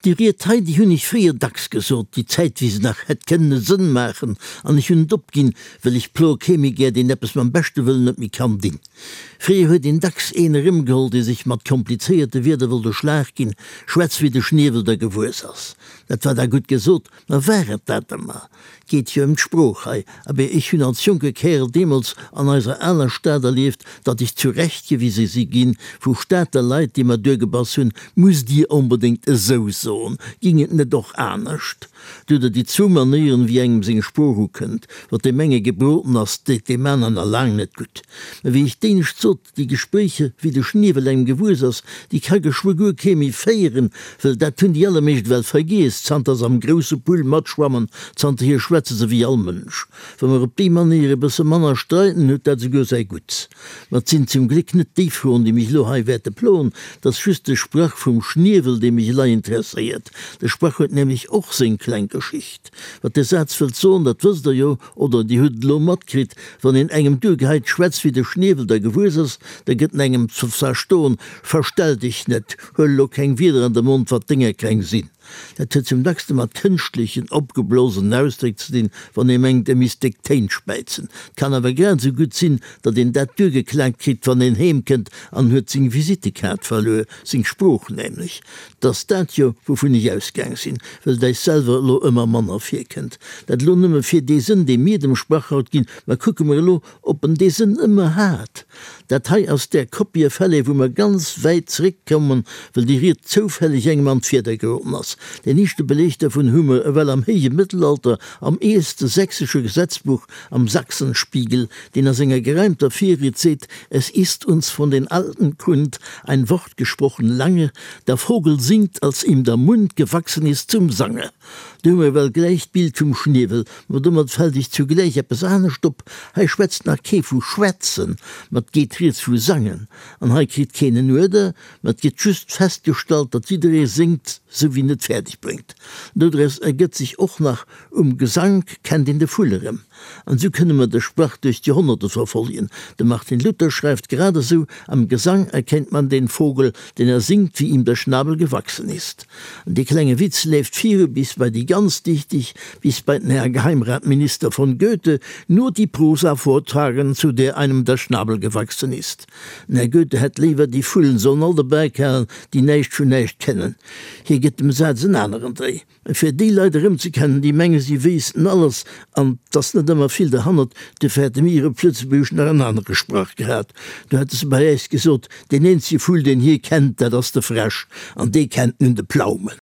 Déi Ried hei, déi hunn ech fréier dacks gesot, déi Zäit wéi se nach hätt kënnen e Sënn maachen, an ech hunn et opginn, well ech ploe kee méi gär, deen eppes mam beschte Wëllen net méi kann dinn. Fréier huet een dacks een erëmgeholl, dee sech mat komplizéierte Wierder wollt e Schlag ginn, schwätz wéi de Schniewel der gewuess ass. Dat war da gutt gesot, ma war et dat ëmmer? 't geet jo ëm d'Sprooch hei. Abee, ech hunn als jonke Kärel deemools an eiser aler Stad erlieft, datt ech zurechtgewise si ginn vu Stater Leit, déi mer duergebass hunn, Musst Dir onbedéngt esou soen? Ging et net och anescht? Do hutt Der déi zwou Manéieren, wéi engem seng Sprooch ukënnt. Wat deem enge gebroden ass, deet deem aneren nach laang net gutt. Mä wéi ech d'éinescht sot, Déi Gespréicher, wéi de Schniewel engem gewuess ass, déi ka geschwë guer kee méi féieren, wëll dat hunn déi allermeescht ewell vergiess, zanter se am grousse Pull matschwammen, zanterhier schwätze se wéi all Mënsch. Wa mer op déi Manéier e bësse manner streiden, huet dat esouguer säi Gutts. Ma 't sinn zum Gléck net déi Froen, déi mech elo hei wäerte ploen, 't ass just de Sprach vum Schniewel, dee mech elei interesséiert. De Sprach huet nämlech och seng kleng Geschicht. Wat de Saz wëllt soen, dat wësst Der jo, Oder Dir hutt et elo matkritt, wann een engem duergeheit, schwätz wéi de Schniewel der gewuess ass, da gëtt en engem ze verstoen, verstell dech net, huel elo keng Wierder an de Mond, wat denger keng sinn. Dat huet zum dackste mat kënschtlechen, opgeblosenen Ausdréck ze dinn, wann ee mengt, e misst déck Téin späizen. Et kann awer grad esou gutt sinn, datt een dat duergeklaakt kritt, wann een heem kënnt an huet seng Visittekaart verluer, seng Sprooch nämlech. 't ass dat jo, wouvun ech ausgaang sinn, well et äis selwer elo ëmmer manner virkënnt. Dat elo nëmme fir dee Sënn, dee mir dem Sprach haut ginn. Mä kucke mer elo, ob en dee Sënn ëmmer hat. Dat hei ass där Copie-Fälle, wou mer ganz wäit zeréckkommen, well déi Ried zoufälleg engem an d'Fieder geroden ass. Deen éischte Beleg dervun hu mer ewell am héije Mëttelalter am eelste sächsesche Gesetzbuch, am Sachsenspiegel, deen a senger gereimter Virried seet, Es ist uns von den Alten kund ein Wort gesprochen lange, der Vogel singt, als ihm der Mund gewachsen ist zum Sange. Do hu mer ewell gläich d'Bild vum Schniewel, ma domat fält iech zugläich eppes anescht op, Hei schwätzt nach kee vu schwätzen, ma 't geet rieds vu sangen. An hei kritt keen en Uerder, ma 't gëtt just festgestallt, datt jidderee séngt, sou wéi en et fäerdeg bréngt. Dodraus ergëtt sech och nach, Um Gesank kennt een de Vull erëm. An esou kënne mer de Sprach duerch d'Joerhonnerte verfollegen. De Martin Luther schreift grad esou, Am Gesang erkennt man den Vogel, denn er singt, wie ihm der Schnabel gewachsen ist. An dee klenge Witz leeft viru bis bei déi ganz Dichtig, bis bei den Herr Geheimratminister von Goethe, nur die Prosa vortragen, zu der einem der Schnabel gewachsen ist. Den Här Goethe hätt léiwer, déi Vullen sollen all dobäi kalen, déi näischt vun näischt kennen. Hie gëtt dem Saz en aneren Dréi. Fir déi Leit erëmzekennen, déi menge si wéissten alles an 't ass net ëmmer vill derhannert, dofir hätte mir op Lëtzebuergesch nach en anere Sprach gehat. Do hätte se bei äis gesot, deen eenzege Vull, deen hie kennt, dat ass de Fräsch, an dee kennt nun de Plaumen.